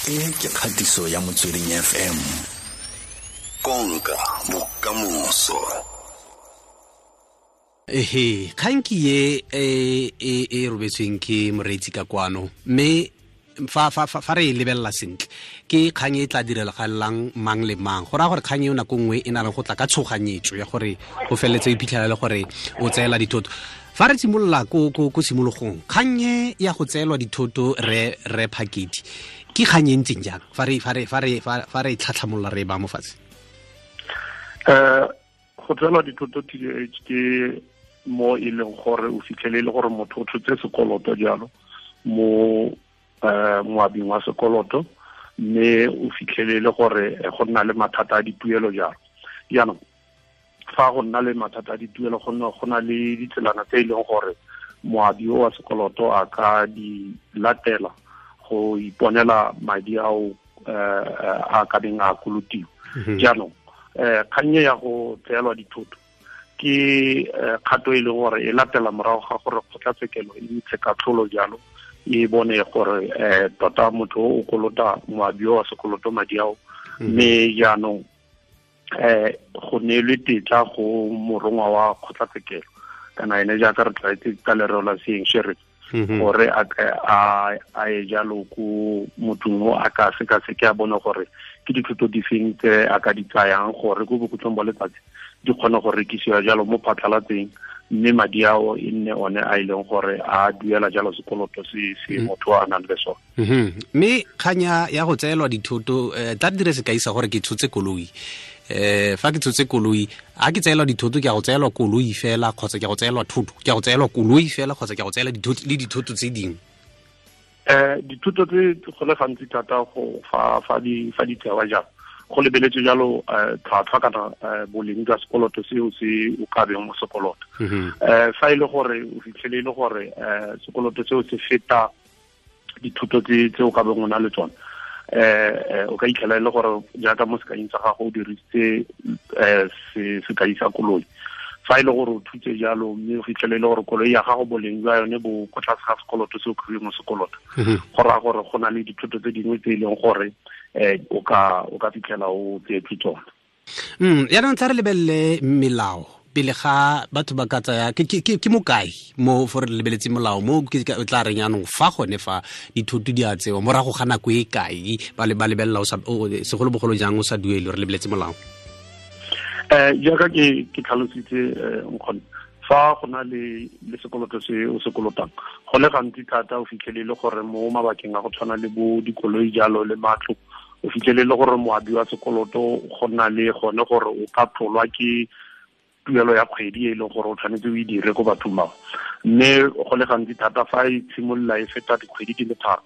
E ke kgatiso ya Motsweding FM. Konka bokamoso. Ehe, kgang ke ye e robetsweng ke moreetsi ka kwano, mme fa re e lebelela sentle ke kgang e tla direlagalelang mang le mang. Go raya gore kgang eo nako nngwe e na le go tla ka tshoganyetso ya gore o feleletse o iphitlhela le gore o tseela dithoto. Fa re simolola ko tshimologong, kgang e ya go tseelwa dithoto re Phakedi ke kgang e ntseng jang fa re tlhatlhamolola re e ba mo fatshe? Go tseelwa dithoto TDH ke mo e leng gore o fitlhele e le gore motho o tshotse sekoloto jalo mo moabing wa sekoloto, mme o fitlhele le gore go nna le mathata a dituelo jalo. Jaanong fa go nna le mathata a dituelo go na le ditselana tse e leng gore moabi o wa sekoloto a ka di latela go iponela madi ao a ka beng a kolotiwa. Jaanong kgang ya go tseelwa dithoto ke kgato e leng gore e latela morago ga gore kgotlatshekelo e ntshe katlholo jalo, e bone gore tota motho o kolota moabi wa sekoloto madi ao, mme jaanong go neelwe tetla go morongwa wa kgotlatshekelo kana ene jaaka re tlwaetse ka lereo la seeng sheriff, gore a ye jalo ko mothong o a ka sekaseke a bone gore ke dithoto difeng tse a ka di tsayang gore ko bokhutlong ba letsatsi di kgone go rekisiwa jalo mo phatlhalatseng, mme madi ao e nne one a e leng gore a duela jalo sekoloto se motho a nang le sone. Mme kganya ya go tseelwa dithoto, tla dire sekai sa gore ke tshotse koloi. Fa ke tshotse koloi, a ke tseelwa dithoto ke a go tseelwa koloi fela kgotsa ke a go tseelwa thoto, ke a go tseelwa koloi fela kgotsa ke a go tseela dithoto le dithoto tse dingwe? Dithoto tse go le gantsi thata go fa di tsewa jalo go lebeletse jalo tlhwatlhwa kana boleng jwa sekoloto seo se o ka beng mo sekoloto. Fa e le gore o fitlhele e le gore sekoloto seo se feta dithuto tse o ka beng o na le tsone, o ka itlhela e le gore jaaka mo sekaing sa gago o dirisitse sekai sa koloi. Fa e le gore o thutse jalo mme o fitlhele e le gore koloi ya gago boleng jwa yone bo ko tlase ga sekoloto se o kry-ileng mo sekoloto, go raya gore go na le dithuto tse dingwe tse e leng gore o ka fitlhela o tseetswe tsone. Jaanong tla re lebelele melao pele ga batho ba ka tsaya ke mokae mo fo re lebeletse molao mo ke tla reng jaanong fa gone fa dithoto di a tsewa morago ga nako e kae ba lebelela segolobogolo jang o sa duele, re lebeletse molao? Jaaka ke tlhalositse nkgonne, fa go na le sekoloto se o se kolotang go le gantsi thata o fitlhele le gore mo mabakeng a go tshwana le bo dikoloi jalo le matlo, o fitlhele le gore moabi wa sekoloto go nna le gone gore o ka tlolwa ke tuelo ya kgwedi e leng gore o tshwanetse o e dire ko bathong bao. Mme go le gantsi thata fa e tshimolola e feta dikgwedi di le tharo,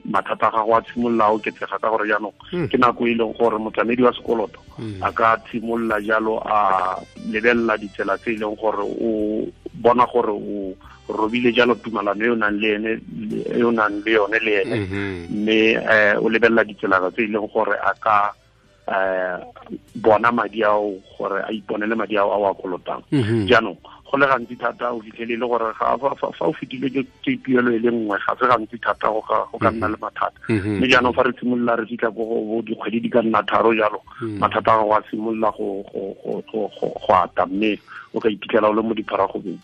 mathata a gago a tshimolola a oketsega ka gore jaanong ke nako e leng gore motlamedi wa sekoloto a ka tshimolola jalo a lebelela ditsela tse e leng gore o bona gore o robile jalo tumalano e o nang le ene e o nang le yone le ene, mme o lebelela ditsela tse e leng gore a ka bona madi ao gore a iponele madi ao a o a kolotang. Jaanong go le gantsi thata o fitlhele le gore fa o fetile ke tuelo e le nngwe ga se gantsi thata go ka nna le mathata. Mme jaanong fa re simolola re fitlha ko go dikgwedi di ka nna tharo jalo, mathata a gago a simolola go ata, mme o ka iphitlhela o le mo dipharagobeng.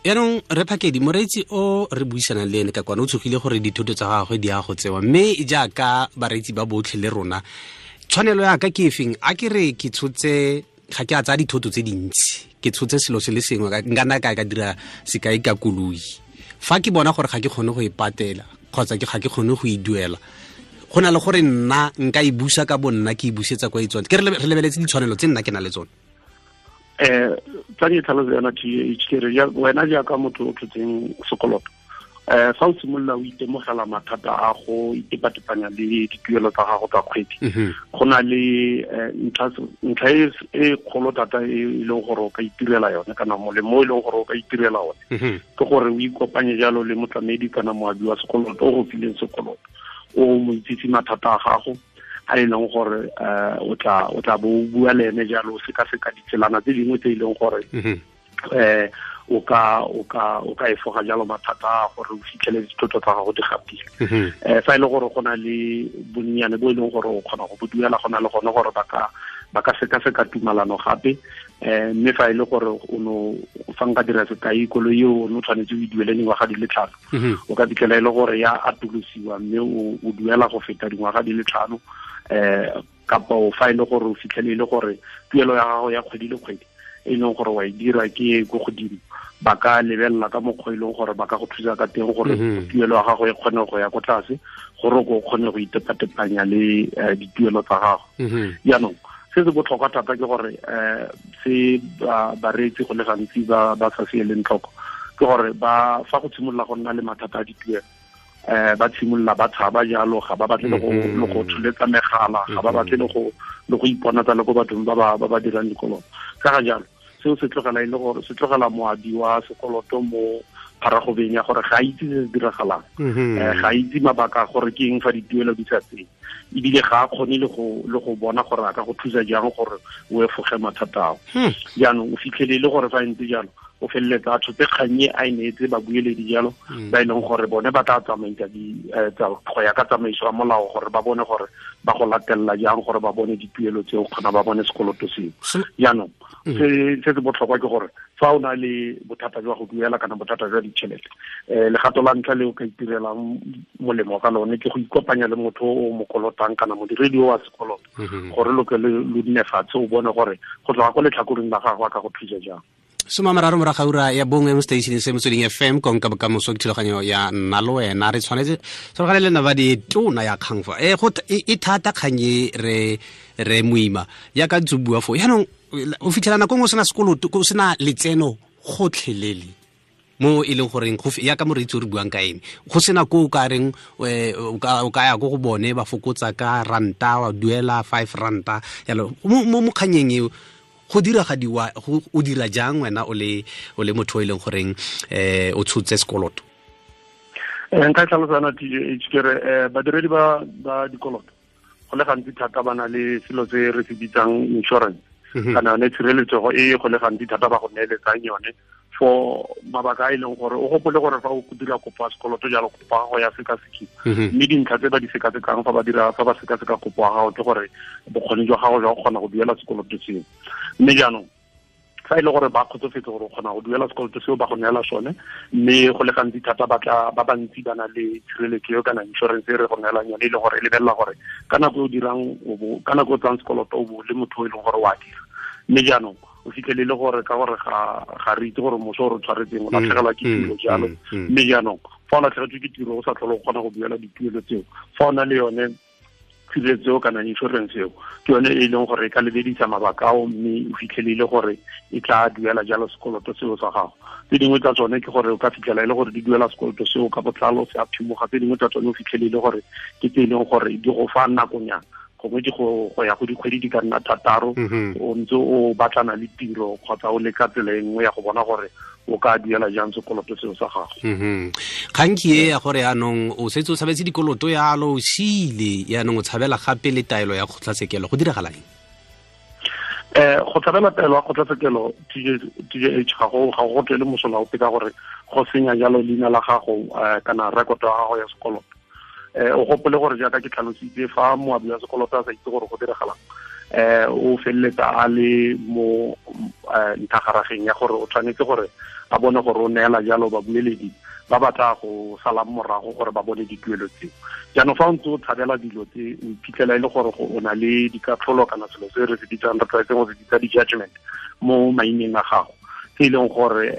Yaanong re Phakedi, moreetsi o re buisanang le ene ka kwana o tshogile gore dithoto tsa gagwe di a go tsewa, mme jaaka bareetsi ba botlhe le rona, tshwanelo ya ka ke efeng? A ke re ke tshotse, ga ke a tsaya dithoto tse dintsi, ke tshotse selo se le sengwe, nka nna ka dira sekai ka koloi. Fa ke bona gore ga ke kgone go e patela kgotsa ga ke kgone go e duela, go na le gore nna nka e busa ka bo nna ke e busetsa kwa e tsone. Ke re lebeletse ditshwanelo tse nna ke na le tsone. Tla ke tlhaloso yona TH, ke re wena jaaka motho o tshotseng sekoloto, fa o simolola o itemogela mathata a go itepatepanya le dituelo tsa gago tsa kgwedi, go na le ntlha e kgolo thata e leng gore o ka itirela yone kana molemo o e leng gore o ka itirela one, ke gore o ikopanye jalo le motlamedi kana moabi wa sekoloto o go fileng sekoloto, o mo itsise mathata a gago a e leng gore o tla bo o bua le ene jalo, o sekaseka ditselana tse dingwe tse e leng gore o ka efoga jalo mathata gore o fitlhele dithoto tsa gago di gapile. Fa e le gore go na le bonnyane bo e leng gore o kgona go bo duela, go na le gone gore ba ka sekaseka tumalano gape. Mme fa e le gore o no fa nka dira sekai, koloi eo o ne o tshwanetse o e duele dingwaga di le 5, o ka fitlhela e le gore ya atolosiwa mme o duela go feta dingwaga di le 5. Kapa fa e le gore o fitlhele e le gore tuelo ya gago ya kgwedi le kgwedi e leng gore wa e dira ke ko godimo, ba ka lebelela ka mokgwa e leng gore ba ka go thusa ka teng gore tuelo ya gago e kgone go ya ko tlase, gore o kgone go itepatepanya le dituelo tsa gago. Jaanong se se botlhokwa thata ke gore se bareetsi go le gantsi ba sa se eleng tlhoko ke gore ba fa go tshimolola go nna le mathata a dituelo, ba tshimolola ba tshaba jalo, ga ba batle le go tsholetsa megala, ga ba batle le go iponatsa le ko bathong ba ba dirang dikoloto. Ka ga jalo seo se tlogela e le gore se tlogela moabi wa sekoloto mo pharagobeng ya gore ga a itse se se diragalang, ga a itse mabaka gore ke eng fa dituelo di sa tsene, ebile ga a kgone le go bona gore a ka go thusa jang gore o efoge mathata ao. Jaanong o fitlhele le gore fa ntse jalo o feleletsa a tshotse kgang e a e neetse babueledi jalo, ba e leng gore bone ba tla tsamaisa go ya ka tsamaiso ya molao gore ba bone gore ba go latelela jang gore ba bone dituelo tseo kgona ba bone sekoloto seo. Jaanong se se botlhokwa ke gore fa o na le bothata jwa go duela kana bothata jwa ditšhelete, legato la ntlha le o ka itirelang molemo ka lone ke go ikopanya le motho o mo kolotang kana modiredi o wa sekoloto, gore lo ke lo nne fatshe o bone gore go tloga ko letlhakoreng la gagwe a ka go thusa jang. 30 morago ga ura ya 1 mo station se Motsweding FM, konka bokamoso ke thulaganyo ya nna le wena. Re tshwanetse tshwaragane le nna ba di tona ya kgang fa e thata kgang e re moima jaaka ntse o bua fo. Jaanong o fitlhela nako nngwe o sena sekoloto, o sena letseno gotlhelele mo e leng goreng jaaka moreetsi o re buang ka ene, go sena ko o ka reng o ka ya ko go bone ba fokotsa ka ranta, wa duela 5 ranta jalo. Mo kganyeng eo go diragadiwa, o dira jang wena o le motho o e leng goreng o tshotse sekoloto? Nka tlhalosana TJH ke re badiredi ba dikoloto go le gantsi thata ba na le selo se re se bitsang insurance, kana yone tshireletsego e go le gantsi thata ba go neeletsang yone for mabaka a e leng gore o gopole gore fa o dira kopo ya sekoloto jalo kopo ya gago ya sekasekiwa, mme dintlha tse ba di sekasekang fa ba sekaseka kopo ya gago ke gore bokgoni jwa gago jwa go kgona go duela sekoloto seo. Mme jaanong fa e le gore ba kgotsofetse gore o kgona go duela sekoloto seo ba go neela sone, mme go le gantsi thata ba bantsi ba na le tshireletso eo kana insurance e re go neelang yone, e le gore e lebelela gore ka nako e o dirang ka nako e o tsayang sekoloto o bo le motho o e leng gore o a dira. Mme jaanong o fitlhele le gore ka gore ga re itse gore moso o re tshwaretseng o latlhegelwa ke tiro jalo, mme jaanong fa o latlhegetswe ke tiro o sa tlhole o kgona go duela dituelo tseo, fa o na le yone tshireletso kana insurance eo ke yone e leng gore e ka lebedisa mabaka ao, mme o fitlhelele gore e tla duela jalo sekoloto seo sa gago. Tse dingwe tsa tsone ke gore o ka fitlhela e le gore di duela sekoloto seo ka botlalo se a phimoga, tse dingwe tsa tsone o fitlhelele gore ke tse e leng gore di go fa nakonyana, gongwe di go ya go dikgwedi di ka nna 6 o ntse o batlana le tiro kgotsa o leka tsela e nngwe ya go bona gore o ka duela jang sekoloto seo sa gago. Kgang ke e ya gore yaanong o setse o tshabetse dikoloto yalo o siile, yaanong o tshabela gape le taelo ya kgotlatshekelo, go diragala eng? Go tshabela taelo ya kgotlatshekelo TJH ga go tswele mosola ope ka gore go senya jalo leina la gago kana rekoto ya gago ya sekoloto. O gopole gore jaaka ke tlhalositse fa moabi wa sekoloto a sa itse gore go diragalang, o feleletsa a le mo nthagarageng ya gore o tshwanetse gore a bone gore o neela jalo babueledi ba batla go salang morago gore ba bone dituelo tseo. Jaanong fa o ntse o tshabela dilo tse o iphitlhela e le gore o na le dikatlholo kana selo se re se bitsang re tlwaetseng go se bitsa di-judgment mo maineng a gago, tse e leng gore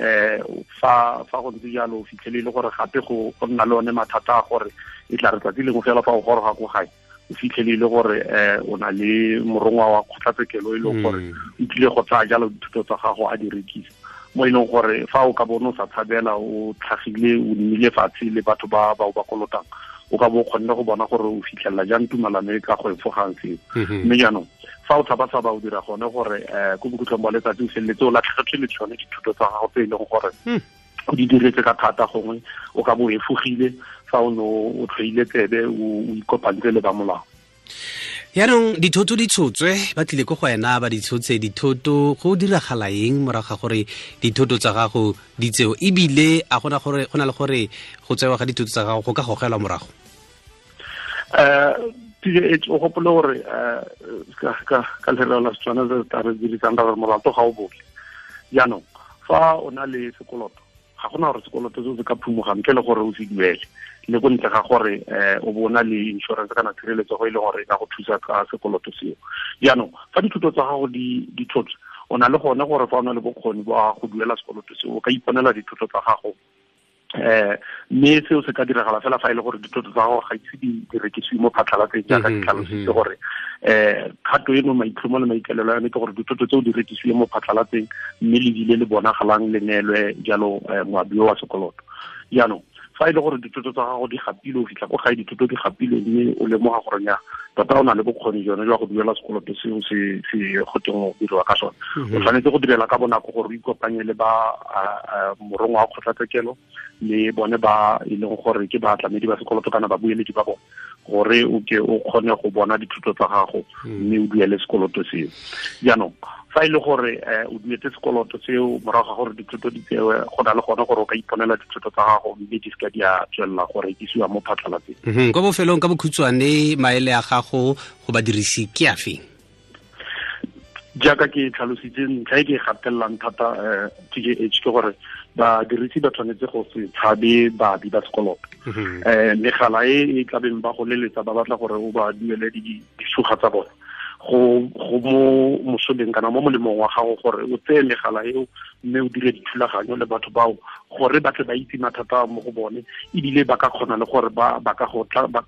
fa go ntse jalo o fitlhele e le gore gape go nna le one mathata a gore e tla re tsatsi lengwe fela fa o goroga ko gae o fitlhele e le gore o na le morongwa wa kgotlatshekelo e leng gore o tlile go tsaya jalo dithuto tsa gago a di rekisa, mo e leng gore fa o ka bone o sa tshabela o tlhagile o nnile fatshe le batho ba ba o ba kolotang, o ka bo o kgonne go bona gore o fitlhelela jang tumalano e ka go efogang seo. Mme jaanong fa o tshaba-tshaba o dira gone gore ko bokhutlong ba letsatsi o feleletse o latlhegetswe le tsone dithuto tsa gago tse e leng gore o di diretse ka thata, gongwe o ka bo o efogile fa o ne o tlhoile tsebe o ikopantse le ba molao. Yaanong dithoto di tshotswe, ba tlile ko go wena ba di tshotse dithoto, go diragala eng morago ga gore dithoto tsa gago di tseo, ebile a gona gore go na le gore go tsewa ga dithoto tsa gago go ka gogelwa morago? O gopole gore ka lereo la Setswana se tla re dirisang ra gore molato ga o bole. Jaanong fa o na le sekoloto, ga gona gore sekoloto seo se ka phumoga ntle le gore o se duele, le ko ntle ga gore o bona le insurance kana tshireletso go e leng gore e ka go thusa ka sekoloto seo. Jaanong fa dithuto tsa gago di tshotswe, o na le gone gore fa o na le bokgoni ba go duela sekoloto seo, o ka iponela dithuto tsa gago. Mme seo se ka diragala fela fa e le gore dithoto tsa gago ga ise di rekisiwe mo phatlhalatseng, jaaka ke tlhalositse gore kgato eno maitlhomo le maikaelelo a yone ke gore dithoto tseo di rekisiwe mo phatlhalatseng, mme lebile le bonagalang le neelwe jalo moabi wa sekoloto. Jaanong fa e le gore dithoto tsa gago di gapilwe, o fitlha ko gae dithoto di gapilwe, mme o lemoga gore nya tota o na le bokgoni jone jwa go duela sekoloto seo se go teng go diriwa ka sone, o tshwanetse go direla ka bonako gore o ikopanye le ba morongwa wa kgotlatshekelo le bone ba e leng gore ke batlamedi ba sekoloto kana babueledi ba bone, gore o ke o kgone go bona dithuto tsa gago mme o duele sekoloto seo. Jaanong fa e le gore o duetse sekoloto seo morago ga gore dithuto di tsewe, go na le gone gore o ka iponela dithuto tsa gago mme di seka di a tswelela go rekisiwa mo phatlhalatseng. Kwa bofelong ka bokhutshwane, maele a gago go badirisi ke a feng? Jaaka ke tlhalositse, ntlha e ke e gatelelang thata TJH ke gore badirisi ba tshwanetse go se tshabe baabi ba sekoloto. Megala e e tlabeng ba go leletsa ba batla gore o ba duele disuga tsa bone, go mo mosoleng kana mo molemong wa gago gore o tseye megala eo mme o dire dithulaganyo le batho bao gore ba tle ba itse mathata mo go bone, ebile ba ka kgona le gore ba ka go tla ba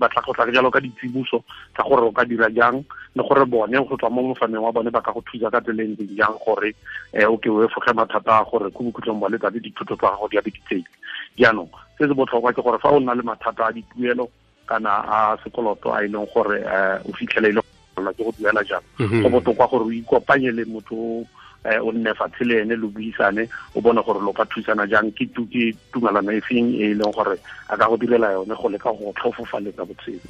tla go tla jalo ka ditsibuso tsa gore o ka dira jang, le gore bone go tswa mo mofaneng wa bone ba ka go thusa ka tsela e ntseng jang gore o ke o efoge mathata a gore ko bokhutlong ba letsatsi dithuto tsa gago di a be di tseile. Jaanong se se botlhokwa ke gore fa o nna le mathata a dituelo kana a sekoloto a e leng gore o fitlhele e le ke go duela jang, go botoka gore o ikopanye le motho o nne fatshe le ene lo buisane, o bone gore lo ka thusana jang, ke tumalano e feng e leng gore a ka go direla yone go leka go tlhofofaletsa botshelo.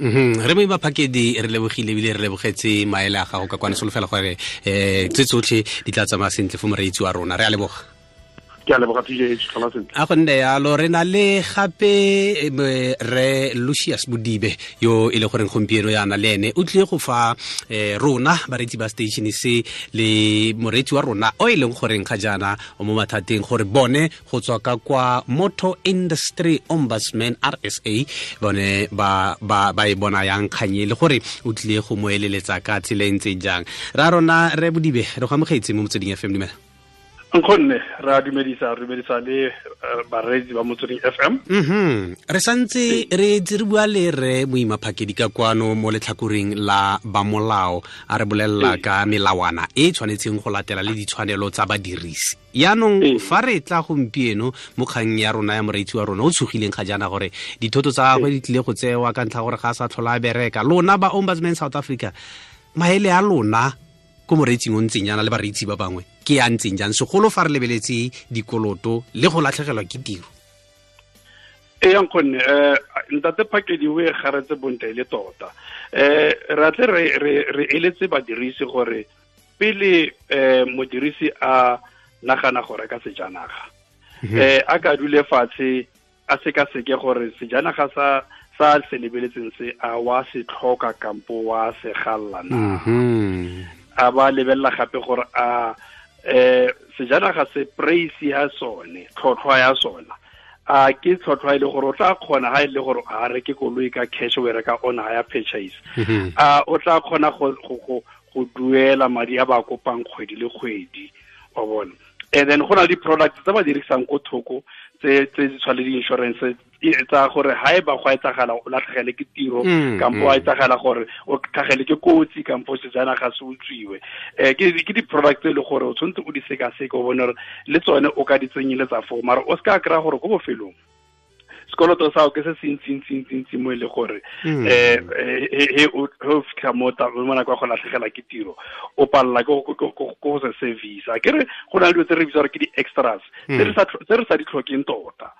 Re Moima Phakedi, re lebogile ebile re lebogetse maele a gago ka kwane, solofela gore tse tsotlhe di tla tsamaya sentle fo moreetsi wa rona. Re a leboga. Ke a leboga TJH, tlhola sentle. A go nne yalo. Re na le gape re Lucius Bodibe yo e le goreng gompieno yana le ene o tlile go fa rona bareetsi ba station se le moreetsi wa rona o e leng goreng ga jaana o mo mathateng, gore bone go tswa ka kwa Motor Industry Ombudsman RSA bone ba e bona yang kganye, le gore o tlile go mo eleletsa ka tsela e ntseng jang. Ra rona re Bodibe, re go amogetse mo Motsweding FM. Dumela. Nkgonne, re a dumedisa, re dumedisa le bareetsi ba Motsweding FM. Re santse re ntse re bua le re Moima Phakedi ka kwano mo letlhakoreng la ba molao, a re bolelela ka melawana e tshwanetseng go latela le ditshwanelo tsa badirisi. Yaanong fa re tla gompieno mo kgang ya rona ya moreetsi wa rona o tshogileng ga jaana gore dithoto tsa gagwe di tlile go tsewa ka ntlha gore ga a sa tlhola a bereka, lona ba Ombudsman South Africa, maele a lona ko moreetsing o ntseng jaana le bareetsi ba bangwe ke a ntseng jang, segolo fa re lebeletse dikoloto le go latlhegelwa ke tiro? E yang gonne ntate Phakedi o e garetse bontle le tota. Re atle re eletse badirisi gore pele modirisi a nagana go reka sejanaga, a ka dule fatshe a sekaseke gore sejanaga sa se lebeletseng se a wa se tlhoka kampo wa se galla na. A ba lebelela gape gore a sejanaga se price ya sone, tlhotlhwa ya sona, a ke tlhotlhwa e le gore o tla kgona ha e le gore a reke koloi ka cash o e reka on hire purchase, a o tla kgona go duela madi a ba kopang kgwedi le kgwedi, wa bona. And then go na le di-products tse ba dirisang ko thoko tse di tshwana le di-insurance tsa gore ha e ba go etsagala o latlhegele ke tiro, kampo a etsagala gore o tlhagele ke kotsi, kampo sejanaga se utswiwe. Ke di-product tse e le gore o tshwanetse o di sekaseke, o bone gore le tsone o ka di tsenyeletsa foo, mara o seka kry-a gore ko bofelong sekoloto sa ke se se ntsi mo e le gore o fitlha mo nako ya go latlhegela ke tiro, o palela ke go se service. A ke re go na le dilo tse re bitsa gore ke di-extras tse re sa di tlhokeng tota.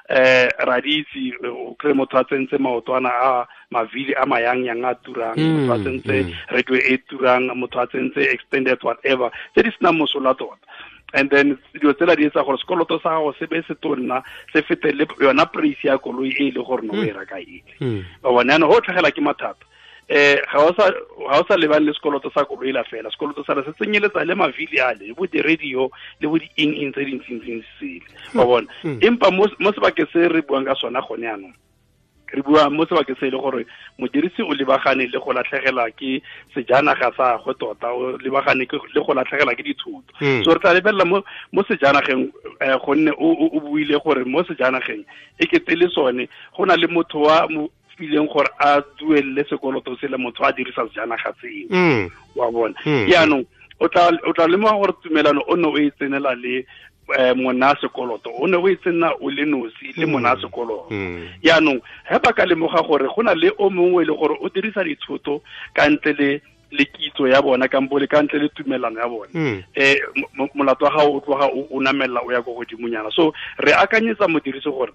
Ra di itse o kry motho a tsentse maotwana a mavili a mayangyang a turang, motho a tsentse radio e turang, motho a tsentse extended whatever tse di senang mosola tota. And then dilo tsela di etsa gore sekoloto sa gago se be se tonna, se fete le yona price ya koloi e le gore no o e reka ele. Ba bona jaanong go tlhagela ke mathata. Ga o sa lebane le sekoloto sa koloi la fela, sekoloto sa se tsenyeletsa le mavili ale, le bo di-radio, le bo di-eng-eng tse dintsintsi sele. Wa bona? Empa mo sebakeng se re buang ka sona gone jaanong, re bua mo sebakeng se e le gore modirisi o lebagane le go latlhegelwa ke sejanaga sa gagwe tota, o lebagane le go latlhegelwa ke dithoto. So re tla lebelela mo sejanageng, gonne o buile gore mo sejanageng e kete le sone go na le motho wa fileng gore a duelele sekoloto se le motho a dirisa sejanaga seo. Wa bona? Jaanong o tla lemoga gore tumelano o ne o e tsenela le mona sekoloto, o ne o e tsena o le nosi le mona sekoloto. Jaanong ge ba ka lemoga gore go na le o mongwe e le gore o dirisa dithoto ka ntle le kitso ya bona kampo le ka ntle le tumelano ya bona, molato wa gago o tloga o namelela o ya ko godimonyana. So re akanyetsa modirisi gore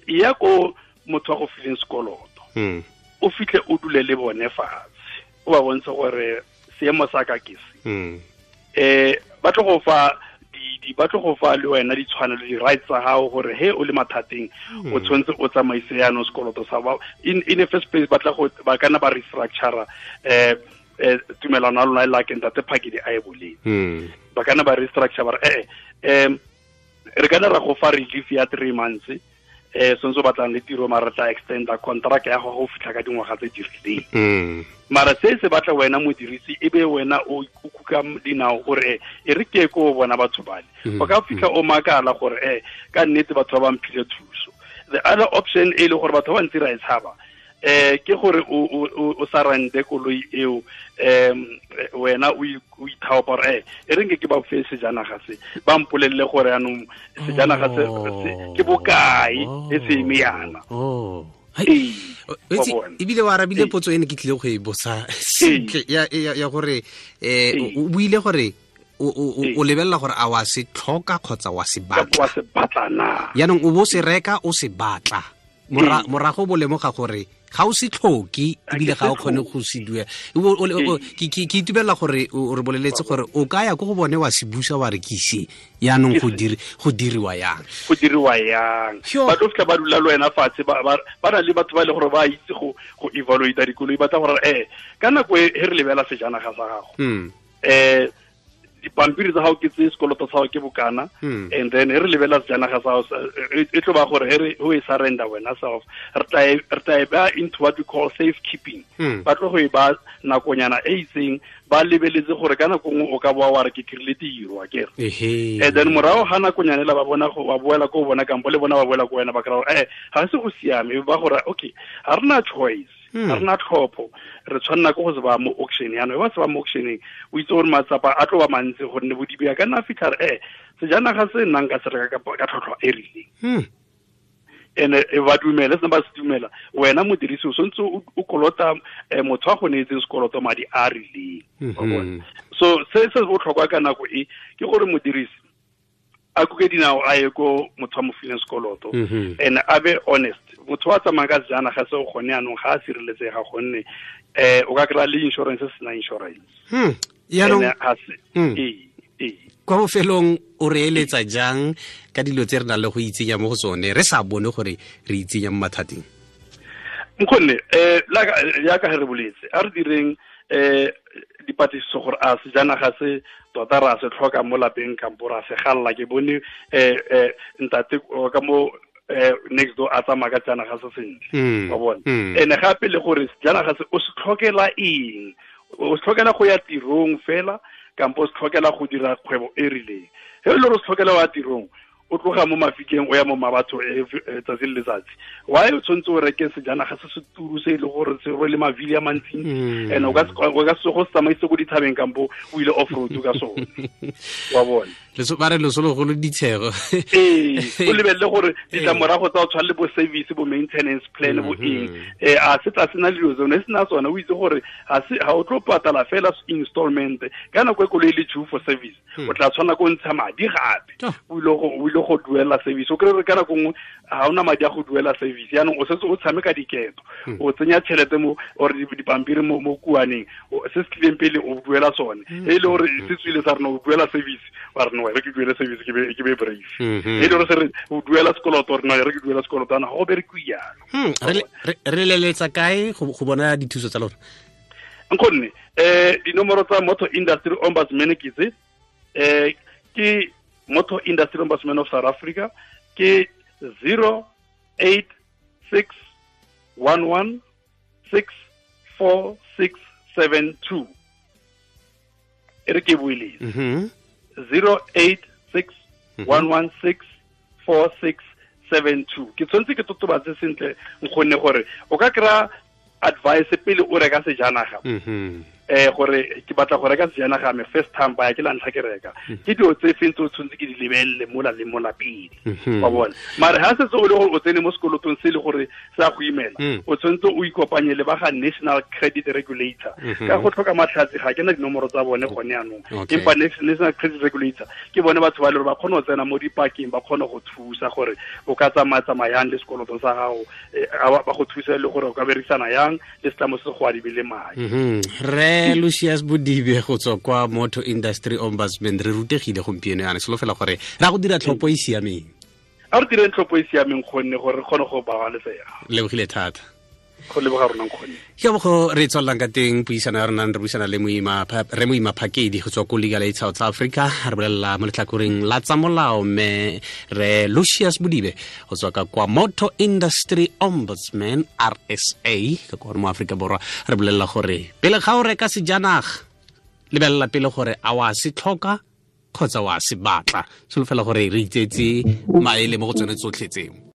ya ko motho wa go fileng sekoloto, o fitlhe o dule le bone fatshe, o ba bontshe gore seemo sa ka ke se. Ba tlo go fa ba tlo go fa le wena ditshwanelo, di-rights tsa gago gore he o le mathateng o tshwanetse o tsamaise jaanong sekoloto sa ba. In the first place ba tla go ba kana ba restructure tumelano ya lona e lakeng ntate Phakedi a e boleng. Ba kana ba restructure ba re re kana ra go fa relief ya 3 months, sentse o batlang le tiro, mara tla extenda contract ya go fitlha ka dingwaga tse di rileng. Mara se se batla wena modirisi e be wena o kuka dinao gore e re ke ko bona batho bale. O ka fitlha o makala gore ka nnete batho ba ba mphile thuso. The other option e le gore batho ba ntse ra e tshaba, ke gore o sa rente koloi eo, wena o ithaopa gore e re nke ke ba fe sejanaga se, ba mpolelele gore jaanong sejanaga se ke bokae e se eme yana. Ebile wa arabile potso ene ke tlile go e botsa sentle ya gore o buile gore o lebelela gore a wa se tlhoka kgotsa wa se batla. Wa se batla na? Jaanong o bo se reka o se batla, morago bo lemoga gore ga o se tlhoke ebile ga o kgone go se duela. Ke itumelela gore o re boleletse gore o ka ya ko go bone wa se busa wa re ke ise, jaanong go diriwa yang. Go diriwa yang. Ba tlo fitlha ba dula le wena fatshe, ba na le batho ba e le gore ba itse go evaluate dikoloi, ba tla gore ka nako e re lebela sejanaga sa gago, dipampiri tsa gago ke tse, sekoloto sa gago ke bokana, and then re lebela sejanaga sa gago e tlo ba gore he o e surrender wena self, re tla e ba into what we call safe keeping. Ba tlo go e ba nakonyana e itseng, ba lebeletse gore ka nako nngwe o ka boa wa re ke kry-ile tiro akere. And then morago ga nakonyana ela ba bona go ba boela ko bona kampo le bona ba boela ko wena, ba kry-a gore ga se go siame, ba gore okay ga rena choice, ga rena tlhopho, re tshwanela ke go se ba mo auction. Jaanong ba se ba mo auctioneng, o itse gore matsapa a tlo ba mantsi gonne bodibe a ka nna fitlha re sejanaga se nnang ka se reka ka tlhotlhwa e rileng. Ene ba dumela, se ba se dumela, wena modirisi o santse o kolota motho a go neetseng sekoloto madi a rileng. So se se botlhokwa ka nako e ke gore modirisi a kuke dinao a ye ko motho a mo fileng sekoloto, and a be honest. Motho wa tsamayang ka sejanaga se o gone jaanong ga a sireletsega gonne o ka kry-a le insurance se sena insurance. Jaanong kwa bofelong o re eletsa jang ka dilo tse re nang le go itsenya mo go tsone re sa bone gore re itsenya mo mathateng? Nkgonne jaaka re boletse, a re direng dipatlisiso gore a sejanaga se tota ra se tlhoka mo lapeng kampo ra se galla. Ke bone ntate ka mo next door a tsamaya ka sejanaga se sentle, wa bona. Ene gape le gore sejanaga se o se tlhokela eng, o se tlhokela go ya tirong fela kampo o se tlhokela go dira kgwebo e rileng. He e le gore o se tlhokela wa tirong, o tloga mo mafikeng o ya mo mabatho tsatsi le letsatsi, why o tshwanetse o reke sejanaga se se turu se e le gore se rwele mavili a mantsintsi, and o ka se go se tsamaise ko dithabeng kampo o ile off road ka sone. Wa bona? Ba re loso logolo ditshego. Ee, o lebelele gore ditlamorago tsa o tshwana le bo service, bo maintenance plan, bo eng, a se tla sena dilo tsone, se na tsone, o itse gore ga o tlo patala fela installment ka nako e koloi le due for service, o tla tshwana ko ntsha madi gape, o ile ile go duela service. O kry re ka nako nngwe ga ona madi a go duela service, yaanong o setse o tshameka diketo, o tsenya tšhelete mo or dipampiri mo kuaneng, se se tlileng pele o duela sone. E le gore se tswile sa rena o duela service, wa re no, re ke duele service ke be brave. E le gore se re o duela sekoloto, re no, re ke duela sekoloto, ana go berekiwe jalo. Re leletsa kae go bona dithuso tsa lona? Nkgonne, dinomoro tsa Motor Industry Ombudsman ke tse, ke Motor Industry Ombudsman of South Africa ke 086 11 64672. E re ke buile 086 116 4672. Ke tshwanetse ke totobatse sentle nkgonne gore o ka kry-a advice pele o reka sejanaga. Gore ke batla go reka sejanaga me first time buyer, ke la ntlha ke reka, ke dilo tse feng tse o tshwanetse ke di lebelele mola le mola pele, wa bona. Mare ha setse o le gore o tsene mo sekolotong se le gore se a go imela, o tshwanetse o ikopanye le ba ga National Credit Regulator. Ka go tlhoka matlhatsi ga ke na dinomoro tsa bone gone yanong, empa National Credit Regulator ke bone batho ba le gore ba kgone go tsena mo dipakeng, ba kgone go thusa gore o ka tsamaya-tsamayang le sekoloto sa gago, ba go thusa le gore o ka berekisana yang le setlamo se go adibile madi. Lucius Bodibe go tswa kwa Motor Industry Ombudsman, re rutegile gompieno yana, solofela gore ra go dira tlhopho e siameng. A re direng tlhopho e siameng gonne gore re kgone go babalesega. Lebogile thata. Go leboga rona nkgonne. Ke bo re tswelelang ka teng puisano ya rona, re buisana le re Moima Phakedi go tswa ko Legal Aid South Africa, re bolelela mo letlhakoreng la tsa molao, mme re Lucius Bodibe go tswa ka kwa Motor Industry Ombudsman RSA ka kwa mo Afrika Borwa, re bolelela gore pele ga o reka sejanaga lebelela pele gore a wa se tlhoka kgotsa wa se batla. Solofela gore re itsetse maele mo go tsone tsotlhe tseo.